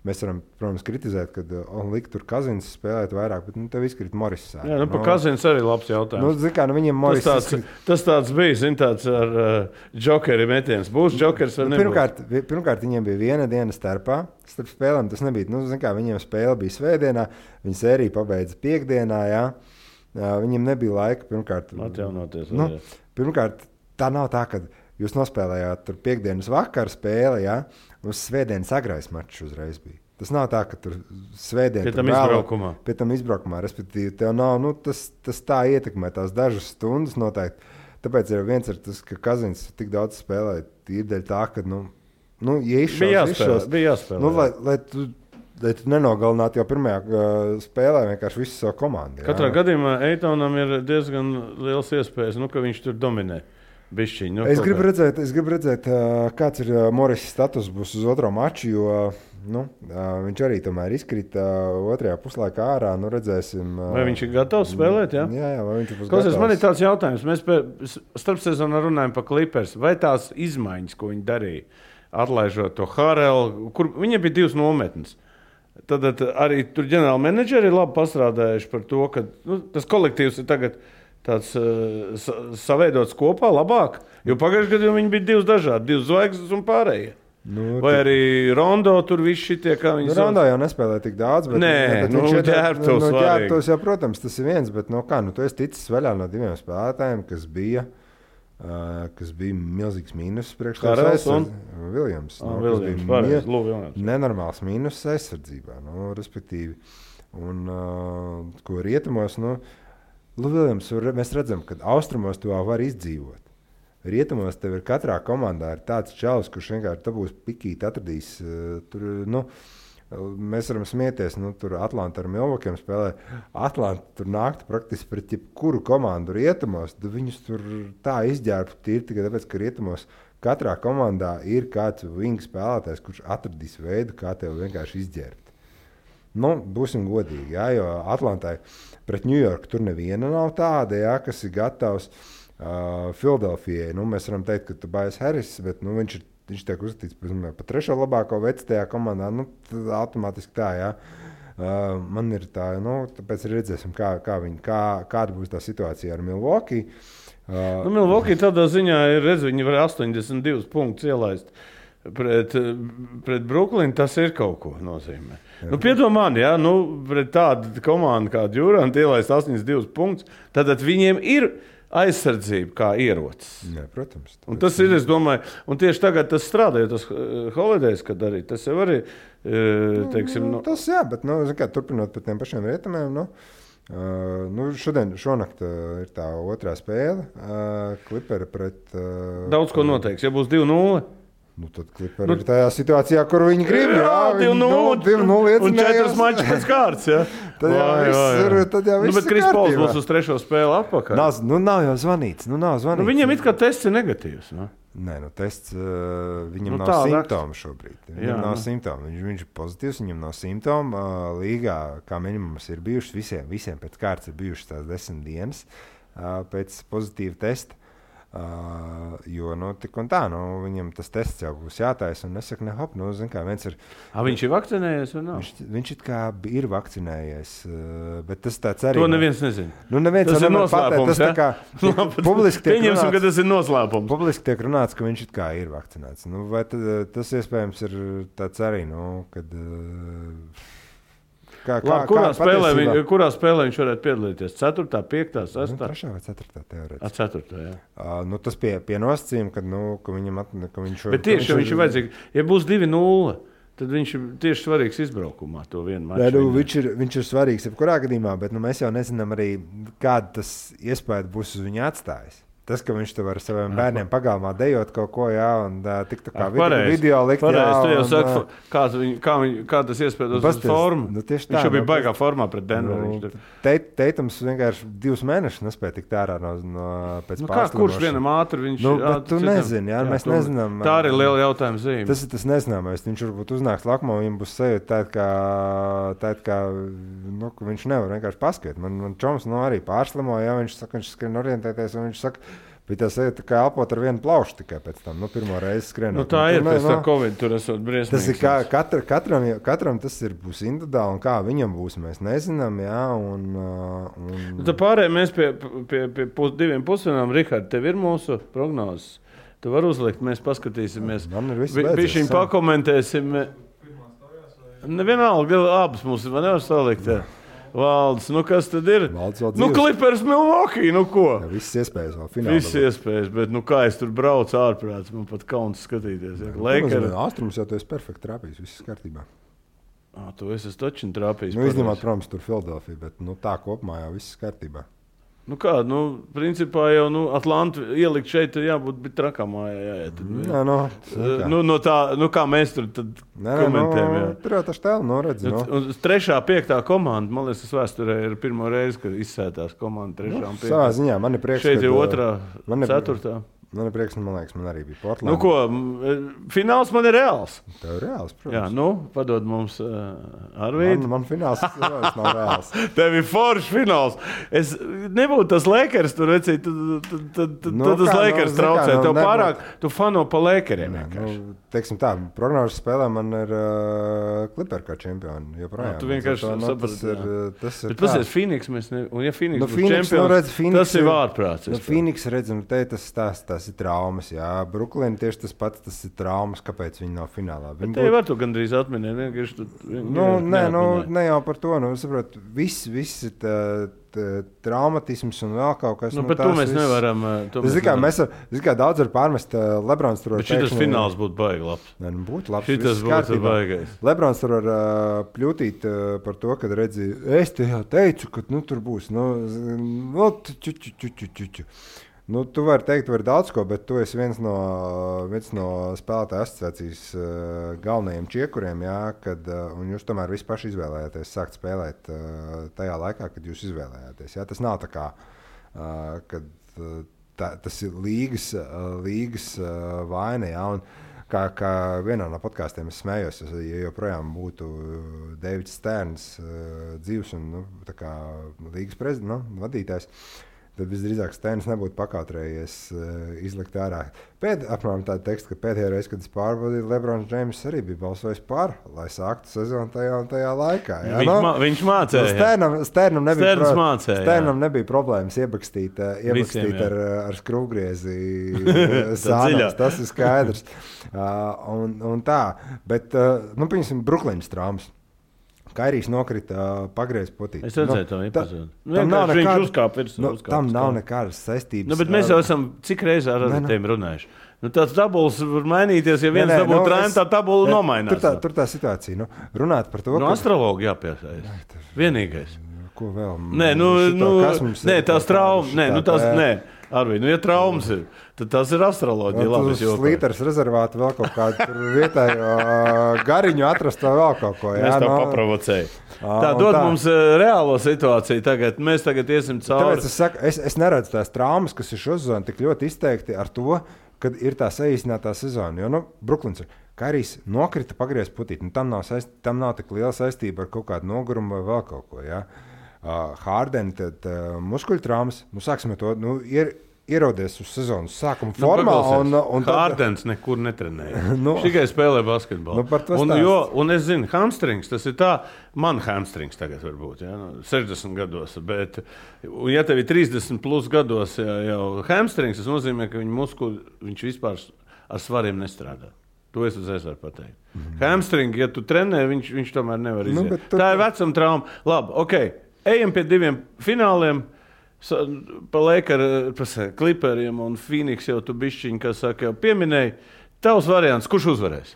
mēs varam, protams, kritizēt, kad likt tur Kazins spēlēt vairāk, bet tev izkrīt Morris. Jā, par Kazins arī labs jautājums. Viņiem Morris tas tāds bija, tāds ar džokeri metiens. Būs džokers vai nebūs? Pirmkārt, viņiem bija viena diena starp spēlēm. Tas nebija, viņiem spēle bija svētdienā, viņi sēriju pabeidza piekdienā, jā. Viņiem nebija laika pirmkārt. Atjaunoties. Pirmkārt, tā nav tā, ka jūs nospēlējāt tur piekdienas vakara spēli, ja? Uz svētdienas agrais mačs uzreiz bija. Tas nav tā, ka tur svētdien pie tam izbraukumā, respektīvi, tev nav, tas tā ietekmē tās dažas stundas noteikti. Tāpēc ir viens ir tas, ka Kazins tik daudz spēlē, tīrdeļ tā, ka, bija jāspēlē. Lai tu nenogalinātu jau pirmajā spēlē vienkārši visu savu komandu. Katrā gadījumā Eitonam ir diezgan liels iespējas, ka viņš tur dominē. Bišķiņ, es gribu redzēt, kāds ir Morris status būs uz otro maču, jo viņš arī tomēr izkrita otrajā puslaikā ārā. Redzēsim, vai viņš ir gatavs spēlēt? Jā, vai viņš būs gatavs. Man ir tāds jautājums. Mēs starpsezonā runājam par Clippers. Vai tās izmaiņas, ko viņi darīja, atlaižot to Harelu, kur viņiem bija 2 nometnes. Tad arī tur ģenerāli menedžeri ir labi pastrādājuši par to, ka tas kolektīvs ir tagad tāds saveidots kopā labāk, jo pagājušajā gadā viņi bija 2 dažādi, 2 zvaigznes un pārējie. Vai arī Rondo tur viss šitie, kā viņi Rondo jau nespēlē tik daudz, bet ģērbtos jau, protams, tas ir viens, bet tu esi ticis vaļā no 2 spēlētājiem, kas bija milzīgs mīnus priekš Harels un Viljams. Nenormāls mīnus aizsardzībā, respektīvi. Un ko rietumos, Viljams, mēs redzam, ka austrumos to var izdzīvot. Rietumos tev ir katrā komandā ir tāds čalis, kurš vienkārši dabūs pikīt, atradīs. Mēs varam smieties, tur Atlanta ar Milwaukee spēlē. Atlanta tur nāktu praktiski pret jebkuru komandu rietumos. Viņus tur tā izģērbtu tīri tikai tāpēc, ka rietumos katrā komandā ir kāds wing spēlētājs, kurš atradīs veidu, kā tev vienkārši izģērbt. Būsim godīgi, jā, jo Atlantai pret Ņujorku tur neviena nav tāda, jā, kas ir gatavs. Filadelfijai, mēs varam teikt, ka Tobias Harris, bet viņš tiek uzskatīts par 3. labāko vecu tajā komandā. Automātiski tā, jā. Man ir tā, tāpēc redzēsim, kāda būs tā situācija ar Milwaukee. Milwaukee tādā ziņā ir, viņi var 82 punktus ielaist. Pret Brooklynu tas ir kaut ko nozīmē. Piedomā, ja pret tādu komandu kā Durant ielaist 82 punktus, tad viņiem ir aizsardzība kā ierocis. Jā, protams. Un tas ir, es domāju, un tieši tagad tas strādā, jo tas Holidays, kad arī, tas jau arī, teiksim... Tas jā, bet, turpinot par tiem pašiem rietumiem, šonakt ir tā otrā spēle, Clipperi pret... Daudz ko noteiks, ja būs 2-0. Tad Clipperi ir tajā situācijā, kur viņi grib. Jā, 2-0 un 4 mačus pēc kārtas. Ja? Tad jau viss ir bet Kris Pols būs uz 3. spēli atpakaļ. Nav jau zvanīts. Viņam it kā tests ir negatīvs. Nē, tests viņam nav simptomu šobrīd. Viņam nav simptomu. Viņš ir pozitīvs, viņam nav simptomu. Līgā, kā minimums, ir bijušas visiem pēc kārtas ir bijušas tās 10 dienas pēc pozitīva testa. Jo, tik un tā, viņam tas tests jau būs jātaisa, un es saku, zin kā, viens ir... Viņš ir vakcinējies vai nav? Viņš it kā ir vakcinējies, bet tas tāds arī... To neviens nezina. Neviens tas ir noslēpums, tas tā kā publiski tiek runāts... ka tas ir noslēpums. Publiski tiek runāts, ka viņš it kā ir vakcinēts. Vai tas iespējams ir tāds arī, kad... Kurā spēlē viņš varētu piedalīties? 4., 5., 6. 3. vai 4. teorētiski. 4. jā. Tas pie nosacījuma, ka viņam ka viņš... Bet tieši, ja viņš ir vajadzīgs, ja būs 2-0, tad viņš ir tieši svarīgs izbraukumā to vienu maču. Viņš ir svarīgs jebkurā gadījumā, bet mēs jau nezinām arī, kāda tas iespēja būs uz viņu atstājis. Tas, ka viņš tev ar saviem bērniem pagalmā dejot kaut ko, un tiktu kā video likt. Pareizi, tu jau saki, kā tas iespējams uz formu. Viņš jau bija baigā formā pret Denveru. Teitams vienkārši 2 mēnešus nespēja tikt ārā pēc pārslimošanas. Kurš vienam ātri viņš... Bet tu nezini, mēs nezinām. Tā arī liela jautājuma zīme. Tas ir tas nezināmais. Viņš varbūt uznāks lakumā, viņam būs sajūta tāda, kā viņš nevar vienkārši paskatīt. Man čoms arī pārslimoja, viņš saka, viņš skrien orientēties, un viņš saka, bet tas ir kā elpot ar vienu plaušu tikai pēc tam, pirmo reizi skrienot. Tā ir, pēc tā Covid tur esot briesmīgs. Tas ir katram tas būs individuāli, un kā viņam būs, mēs nezinām, Tā pārējā mēs pie 2 pusdienām, Rihard, tev ir mūsu prognozes. Tu var uzlikt, mēs paskatīsimies. Man ir viss beidzies. Bišķiņ pakomentēsim. Nevienalga, abas mums nevar salikt. Valdis, kas tad ir? Clippers Milwaukee, ko? Jā, viss iespējas vēl finālā. Viss iespējas, bet kā es tur braucu ārprāts, man pat kauns skatīties. Austrums jau tu esi perfekti trāpījis, viss kārtībā. Tu esi taču trāpījis. Izņemot, protams, tur Filadelfija, bet tā kopumā jau viss kārtībā. Principā jau Atlantu ielikt šeit jābūt trakamā. Kā mēs tur komentējam. Tur jau taču tēlu redzi. 3., 5. komanda, man liekas, tas vēsturē ir pirmo reizi, kad izsētās komanda 3. un 5. Savā ziņā man ir prieks, šeit ir 2., 4. Man ir prieks, man liekas, man arī bija Portland. Fināls man ir reāls. Tev ir reāls, protams. Jā, padod mums Arvīdu. Man fināls nav reāls. Tev ir foršs fināls. Es nebūtu tas Lakers tur, vecīt, tad tas Lakers traucē. Tev pārāk, tu fano pa Lakeriem. Teiksim tā, prognožas spēlē man ir Clipper kā čempioni. Tu vienkārši saprati. Bet pasies, Phoenix mēs ne... Un ja Phoenix būs čempions, tas ir vārprāts. Phoenix redzam, tas ir traumas, Brooklyn tieši tas pats, tas ir traumas, kāpēc viņi nav finālā. Te var tu gandrīz atminēt, ne jau par to, saprot, viss ir traumatisms un vēl kaut kas. Bet to mēs nevaram. Mēs daudz var pārmest Lebrons tur. Bet šitas fināls būtu baigi labs. Būtu labs. Šitas būtu baigais. Lebrons tur var pļūtīt par to, kad redzi, es te jau teicu, ka tur būs. Tu vari teikt, var daudz ko, bet tu esi viens no spēlētāju asociācijas galvenajiem čiekuriem, un jūs tomēr visi paši izvēlējāties sākt spēlēt tajā laikā, kad jūs izvēlējāties. Tas nav tā kā, kad tas ir līgas vaina, un kā vienā no podkāstiem es smējos, ja joprojām būtu Deivids Sterns dzīvs un līgas vadītājs, tad visdrīzāk Stēns nebūtu pakautrējies izlikt ārā. Apmēram tādu tekstu, ka pēdējā reize, kad es pārbaudīju, Lebrons Džeims arī bija balsojis par, lai sāktu sezonu tajā laikā. Viņš mācēja. Stērnam nebija problēmas iebakstīt ar skrūvgriezi sānās. Tas ir skaidrs. Un tā. Bet, piemēram, Brooklynas traumas. Kairijs nokrita pagriez potīt. Es redzēju to epizodu. Viņš uzkāpa virsū. Tam nav nekādas saistības. Bet mēs jau esam cik reizē ar tiem runājuši. Tāds tabulas var mainīties, ja viens dabūtu trēnu, tā tabula nomainās. Tur tā situācija. Runāt par to, astrologu jāpiesaist. Vienīgais. Ko vēl? Tās traumas. Arvīd, ja traumas ir, tad tas ir astroloģija. Slīters rezervāti vēl kaut kādu vietējo gariņu atrast vai vēl kaut ko. Mēs tā paprovocēju. Tā dod mums reālo situāciju tagad. Mēs tagad iesim cauri. Tāpēc es saku, es neredzu tās traumas, kas ir šo sezonu tik ļoti izteikti ar to, kad ir tā saīsinātā sezona. Jo, Brooklyns ir. Kairijs nokrita pagriez putīt. Tam nav tik liela saistība ar kaut kādu nogurumu vai vēl kaut ko, Harden, tad muskuļu traumas, sāksim ar to, ierodies uz sezonas sākuma formā. Hārdens nekur netrenēja. Tikai spēlē basketbolu. Un es zinu, hamstrings, tas ir tā, man hamstrings tagad var būt, 60 gados. Bet, ja tev ir 30 plus gados jau hamstrings, tas nozīmē, ka viņš vispār ar svariem nestrādā. To es uzreiz varu pateikt. Hamstring, ja tu trenē, viņš tomēr nevar iziet. Tā ir vecuma trauma. Labi, ejam pie 2 fināliem. Pa Clipperiem un Phoenix jau tu bišķiņi, kas saka, jau pieminēji. Tavs variants, kurš uzvarēs?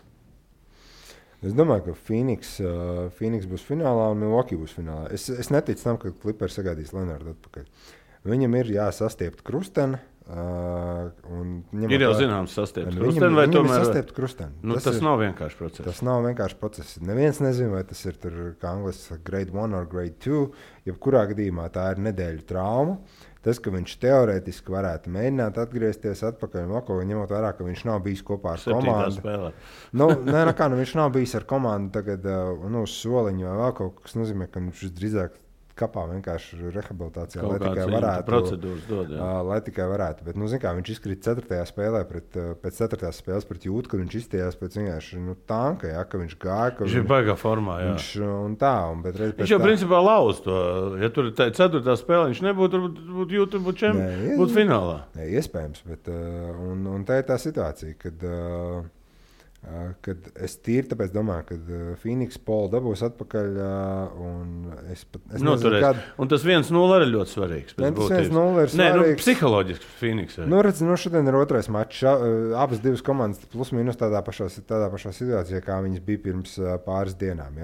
Es domāju, ka Phoenix būs finālā un Milwaukee būs finālā. Es neticu tam, ka Clippers sagādīs Leonardu atpakaļ. Viņam ir jāsastiept krusteni. Ir jau zināms sastiept krusteni, vai tomēr? Sastiept krusteni. Tas nav vienkārši process. Tas nav vienkārši process. Neviens nezina, vai tas ir tur, kā angliski grade 1 or grade 2. Jebkurā gadījumā tā ir nedēļu trauma. Tas, ka viņš teorētiski varētu mēģināt atgriezties atpakaļ, ņemot vērā, ka viņš nav bijis kopā ar komandu. Viņš nav bijis ar komandu tagad uz soliņu vai vēl kaut kas nozīmē, ka viņš drīzāk kapā vienkārši rehabilitācijā, lai tikai varētu. Procedūras dod, lai tikai varētu. Bet, viņš izkrita 4. spēlē pēc 4. spēles pret Jūtu, kad viņš izstījās pēc vienkārši tanka, ka viņš gāja. Viņš ir baigā formā, jā. Viņš jau principā lauz to. Ja tur ir 4. spēle, viņš nebūtu Jūtu, būtu finālā. Iespējams, bet un tā ir tā situācija, kad es tīri tāpēc domāju, ka Phoenix Paul dabūs atpakaļ un es nezinu, kad... Un tas 1-0 arī ļoti svarīgs. Tas 1-0 ir svarīgs. Psiholoģiski Phoenix. Šodien ir otrais mačs. Abas divas komandas plus mīnus tādā pašā situācijā, kā viņas bija pirms pāris dienām.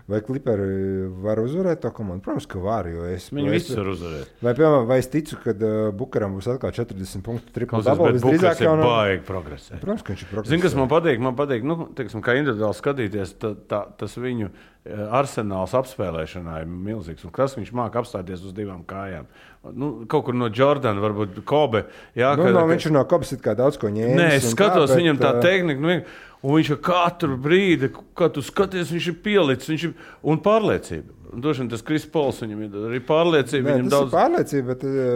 Vai Clipperi var uzvarēt to komandu? Protams, ka var. Viņi visi var uzvarēt. Vai es ticu, ka Bukaram būs atkal 40 punktu triple double? Bukars ir baigi progresē. Protams, ka viņš ir progresē. Zini, kas man patīk? Teiksim, kā individuāli skatīties, tas viņu arsenāls apspēlēšanā ir milzīgs. Un kas viņš māk apstāties uz 2 kājām? Kaut kur no Jordana, varbūt Kobe. Viņš ir no Kobes it kā daudz ko ņēmis. Nē, es skatos viņam tā tehnika. Un viņš katru brīdi, kad tu skaties, viņš ir pielicis, un pārliecība. Došana tas Kris Pols, viņam ir arī pārliecība. Nē, tas ir pārliecība,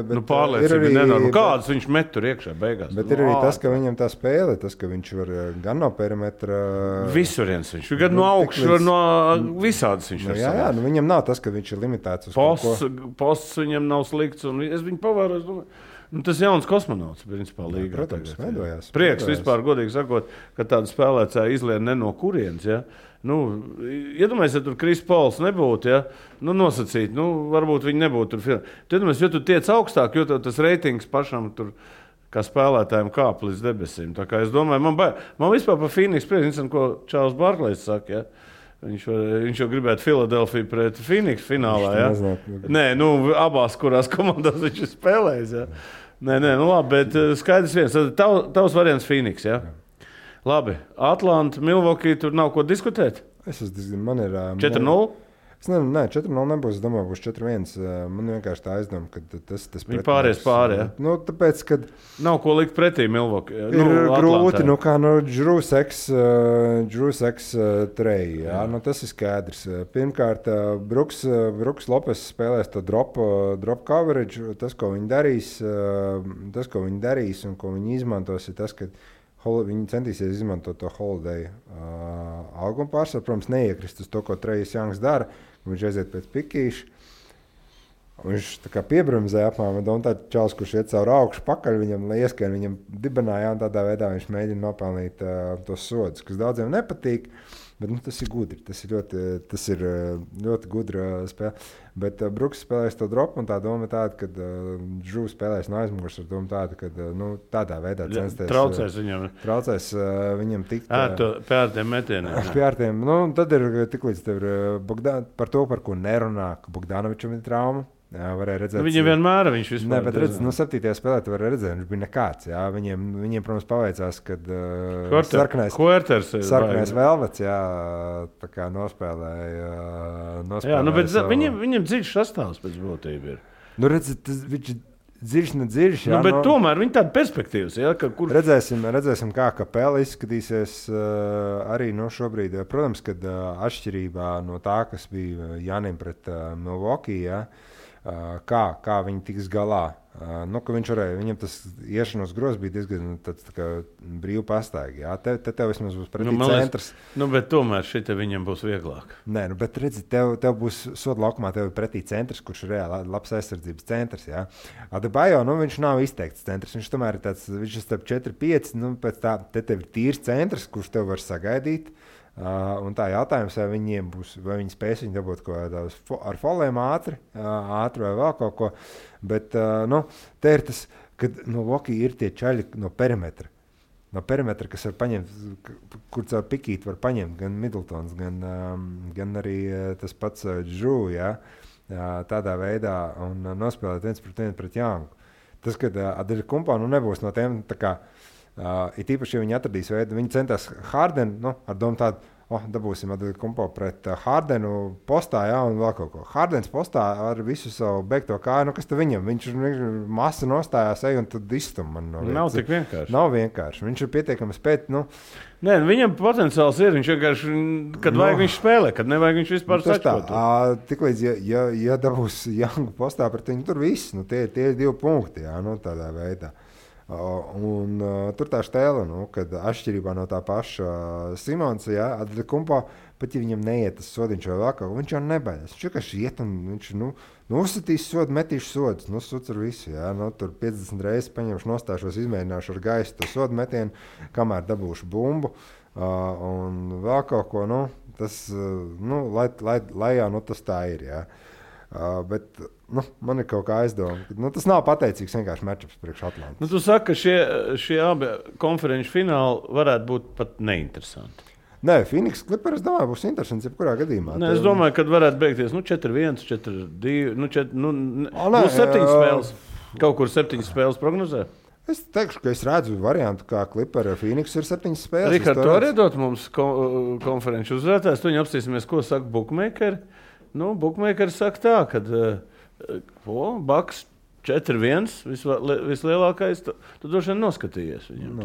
bet pārliecība ir nenormāla. Kādas viņš met tur iekšā beigās? Bet ir arī tas, ka viņam tā spēle, tas, ka viņš var gan no perimetra... Visuriens viņš ir, gan no augšu, no visādas viņš var savās. Viņam nav tas, ka viņš ir limitēts uz posts viņam nav slikts, un es viņu pavēros, domāju. Tas jauns kosmonauts, principā, līgā. Protams, veidojās. Prieks vispār, godīgi sakot, ka tāda spēlētāja izlien ne no kurienes, ja? Iedomājies, ja tur Kris Pols nebūtu, ja? Nosacīt, varbūt viņi nebūtu tur. Iedomājies, jo tu tiec augstāk, jo tas reitings pašam tur, kā spēlētājiem kāp līdz debesīm. Tā kā es domāju, man vispār par Phoenix prieks, ko Čārls Barklejs saka, ja? Viņš jau gribētu Filadelfiju pret Phoenix finālā, ja? Nē, abās, kurās komandās viņš ir spēlējis, ja? Nē, labi, bet skaidrs viens. Tavs variants Phoenix, ja? Labi, Atlanta, Milwaukee, tur nav ko diskutēt? Man ir... 4-0? Nē, 4-0 nebūs. Es domāju, būs 4-1. Man vienkārši tā aizdoma, ka tas viņi pāries pāri, ja? Tāpēc, kad... Nav ko likt pretī Milwaukee. Ir grūti, Drew Seks treji, jā? Tas ir skaidrs. Pirmkārt, Bruks Lopes spēlēs to drop coverage. Tas, ko viņi darīs un ko viņi izmantos, ir tas, ka viņi centīsies izmantot to Holiday algumu pārsvaru. Protams, neiekrist uz to, ko Trejs Jangs dara. Viņš aiziet pēc pikīša. Viņš tā kā piebremzē apmēram. Un tā čals, kurš iet caur augšu pakaļ viņam, lai ieskrien viņam dibenā, un tādā veidā viņš mēģina nopelnīt tos sodus, kas daudziem nepatīk. Bet tas ir gudri. Tas ir ļoti gudra spēle. Bet Bruks spēlēs to dropu, un tā doma ir tāda, ka Drew spēlēs no aizmugures ar domu tādu, ka tādā veidā censties. Traucēs viņam tikt. Pie ārtiem metieniem. Pie ārtiem. Tad ir tiklīdz tev ir par to, par ko nerunā, ka Bogdanovičam ir trauma. Jā, varēja redzēt. Viņam vienmēr viņš vispār. Nē, bet redz, 7. spēlē tu vari redzēt, viņš bija nekāds. Jā, viņiem protams, paveicās, kad sarkanais Velvets, jā, tā kā nospēlēja. Jā, bet viņam dziļš sastāvs pēc būtība ir. Redz, viņš dziļš, nedziļš. Jā, bet tomēr viņi tāda perspektīvas, jā, ka kur... Redzēsim, kā Kapela izskatīsies arī šobrīd. Protams, kad atšķirībā no tā, kas bija Janim pret Milwaukee, jā, kā viņi tiks galā Ka viņš varēja, viņam tas iešanos grozs bija diezgan tāds brīvi pastaigi. Jā, tev vismaz būs pretī centrs. Bet tomēr šita viņam būs vieglāk. Nē, bet redzi, tev būs soda laukumā, tev ir pretī centrs, kurš ir reāli labs aizsardzības centrs. Jā. Adebayo, viņš nav izteikts centrs. Viņš tomēr ir tāds, viņš ir starp 4-5, pēc tā, tev ir tīrs centrs, kurš tev var sagaidīt. Un tā jautājums, vai viņiem būs, vai viņi spēs viņu dabūt ar foliem ātri vai vēl kaut ko. Bet te ir tas, kad Loki ir tie čaļi no perimetra. No perimetra, kas var paņemt, kur caur pikīti var paņemt gan Middletons, gan arī tas pats Drew, ja, tādā veidā un nospēlēt 1-1 pret Youngu. Tas, kad Adetokumpo nebūs no tiem tā kā it īpaši, ja viņi atradīs veidu, viņi centās Hardenu, ar domu tādu, dabūsim Adetokumpo pret Hardenu postā, jā, un vēl kaut ko. Hardens postā ar visu savu beigto kāju, kas tad viņam? Viņš masa nostājās un tad izstum man no vietas. Nav tik vienkārši. Nav vienkārši. Viņš ir pietiekami spēt, Nē, viņam potenciāls ir, viņš vienkārši, kad vajag viņš spēlē, kad nevajag viņš vispār sačkot. Tiklīdz, ja dabūs Youngu postā pret viņu, tur viss, tie ir 2 punkti, jā, tādā veidā. Un tur tā štēle, kad atšķirībā no tā paša Simonsa, Adetokumpo, pat ja viņam neiet tas sodiņš vai vēl kaut, viņš jau nebaidās. Viņš vienkārši iet un viņš uzsitīs sodu, metīšu sodus, suc ar visu. Jā, tur 50 reizes paņemšu, nostāšos, izmēģināšu ar gaisu to sodu metienu, kamēr dabūšu bumbu un vēl kaut ko. Tas, lai jau tas tā ir. Jā. Bet man ir kaut kā aizdoma. Tas nav pateicīgs vienkārši matchups priekš Atlantas. Tu saki, ka šie abi konferenču fināli varētu būt pat neinteresanti. Nē, Phoenix Clippers, es domāju, būs interesants jebkurā gadījumā. Nē, es domāju, ka varētu beigties 4-1, 4-2, būs 7 spēles. Kaut kur 7 spēles prognozē. Es teikšu, ka es redzu variantu, kā Clippers ar Phoenix ir 7 spēles. Rihard, tu arī dot mums konferenču uzvarētājs. Tu viņu apstīsimies, ko saka bookmakeri. Bookmakeri saka tā, ka Bucks 4-1 vislielākais, tu droši vien noskatījies viņam.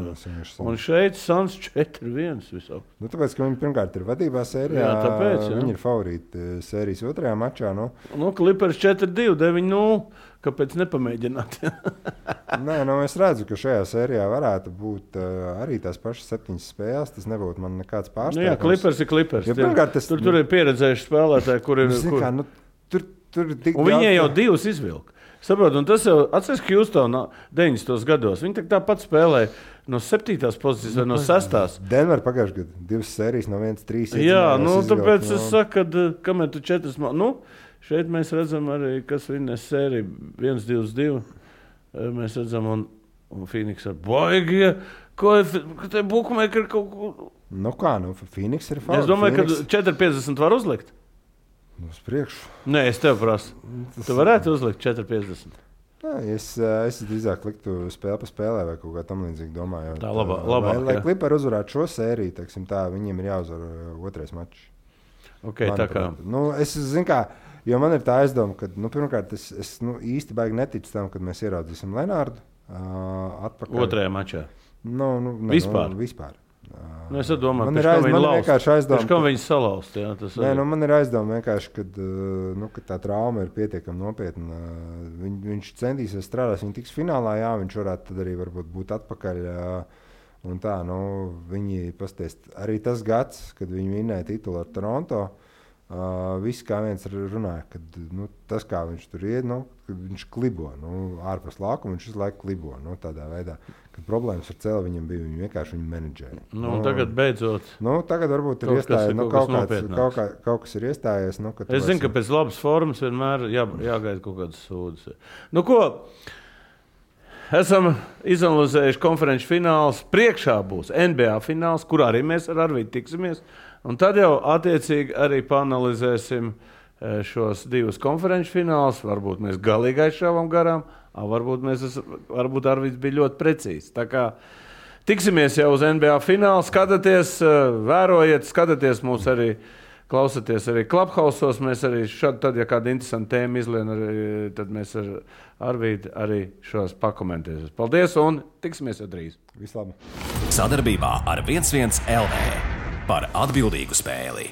Un šeit Suns 4-1 visauk. Tāpēc, ka viņi pirmkārt ir vadībā sērijā, tāpēc, viņi ir favorīti sērijas otrajā mačā. Clippers 4-2, 9-0, kāpēc nepamēģināt? Nē, es redzu, ka šajā sērijā varētu būt arī tās pašas 7 spēles, tas nebūtu man nekāds pārsteigums. Jā, Clippers ir Clippers. Ja, tur ir pieredzējuši spēlētāji, kur ir... Un viņi jau 2 izvilka. Saprot, un tas jau atceries, ka Houstonā 90. gados. Viņi tāpat spēlēja no 7. pozīcijas vai no 6. Denver pagājušajā gadā 2 sērijas no 1-3. Jā, tāpēc es saku, ka kamēr tu 4. Šeit mēs redzam arī, kas viņas sērija 1-2-2. Mēs redzam, un Phoenix ar baigie, ko te bookmakeri kaut ko... Phoenix ir favorīts. Es domāju, ka 4-50 var uzlikt. Uz priekšu. Nē, es tev prasu. Tu varētu uzlikt 4-50. Es drīzāk liktu spēli pa spēlē vai kaut kā tam līdzīgi domāju. Tā labāk. Lai Clippers uzvarētu šo sēriju, viņiem ir jāuzvar otrais mačs. Okay, tā kā. Es zinu kā, jo man ir tā aizdoma, ka, pirmkārt, es īsti baigi neticu tam, kad mēs ieraudzīsim Lenārdu atpakaļ. Otrajā mačā. Vispār. Es domāju, ka viņi salaust. Man ir aizdoma vienkārši, kad tā trauma ir pietiekami nopietna. Viņš centīsies strādāt, viņš tiks finālā, jā, viņš varētu tad arī varbūt būt atpakaļ. Un tā, viņi pasties. Arī tas gads, kad viņi vinnēja titulu ar Toronto, visi kā viens runāja, ka tas, kā viņš tur iet, kad viņš klibo, ārpus laukuma, viņš visu laiku klibo, tādā veidā. Kad problēmas ar cēli viņam bija, viņi vienkārši viņu menedžēja. Tagad beidzot. Tagad varbūt ir iestājies, kaut kas ir iestājies. Es zinu, ka pēc labas formas vienmēr jāgaida kaut kādas sūdzes. Ko? Esam izanalizējuši konferenču fināls. Priekšā būs NBA fināls, kurā arī mēs ar Arvīdu tiksimies. Un tad jau attiecīgi arī paanalizēsim šos 2 konferenču finālus. Varbūt mēs galīgi aizšāvām garām. Varbūt Arvids bija ļoti precīzs. Tā kā tiksimies jau uz NBA finālu, skatieties, vērojiet, skatieties mūs arī, klausieties arī Clubhouse'os. Mēs arī tad, ja kāda interesanta tēma izlien, tad mēs ar Arvīdu arī šos pakomentēsim. Paldies un tiksimies jau drīz. Vislabāk. Sadarbībā ar 11 LV par atbildīgu spēli.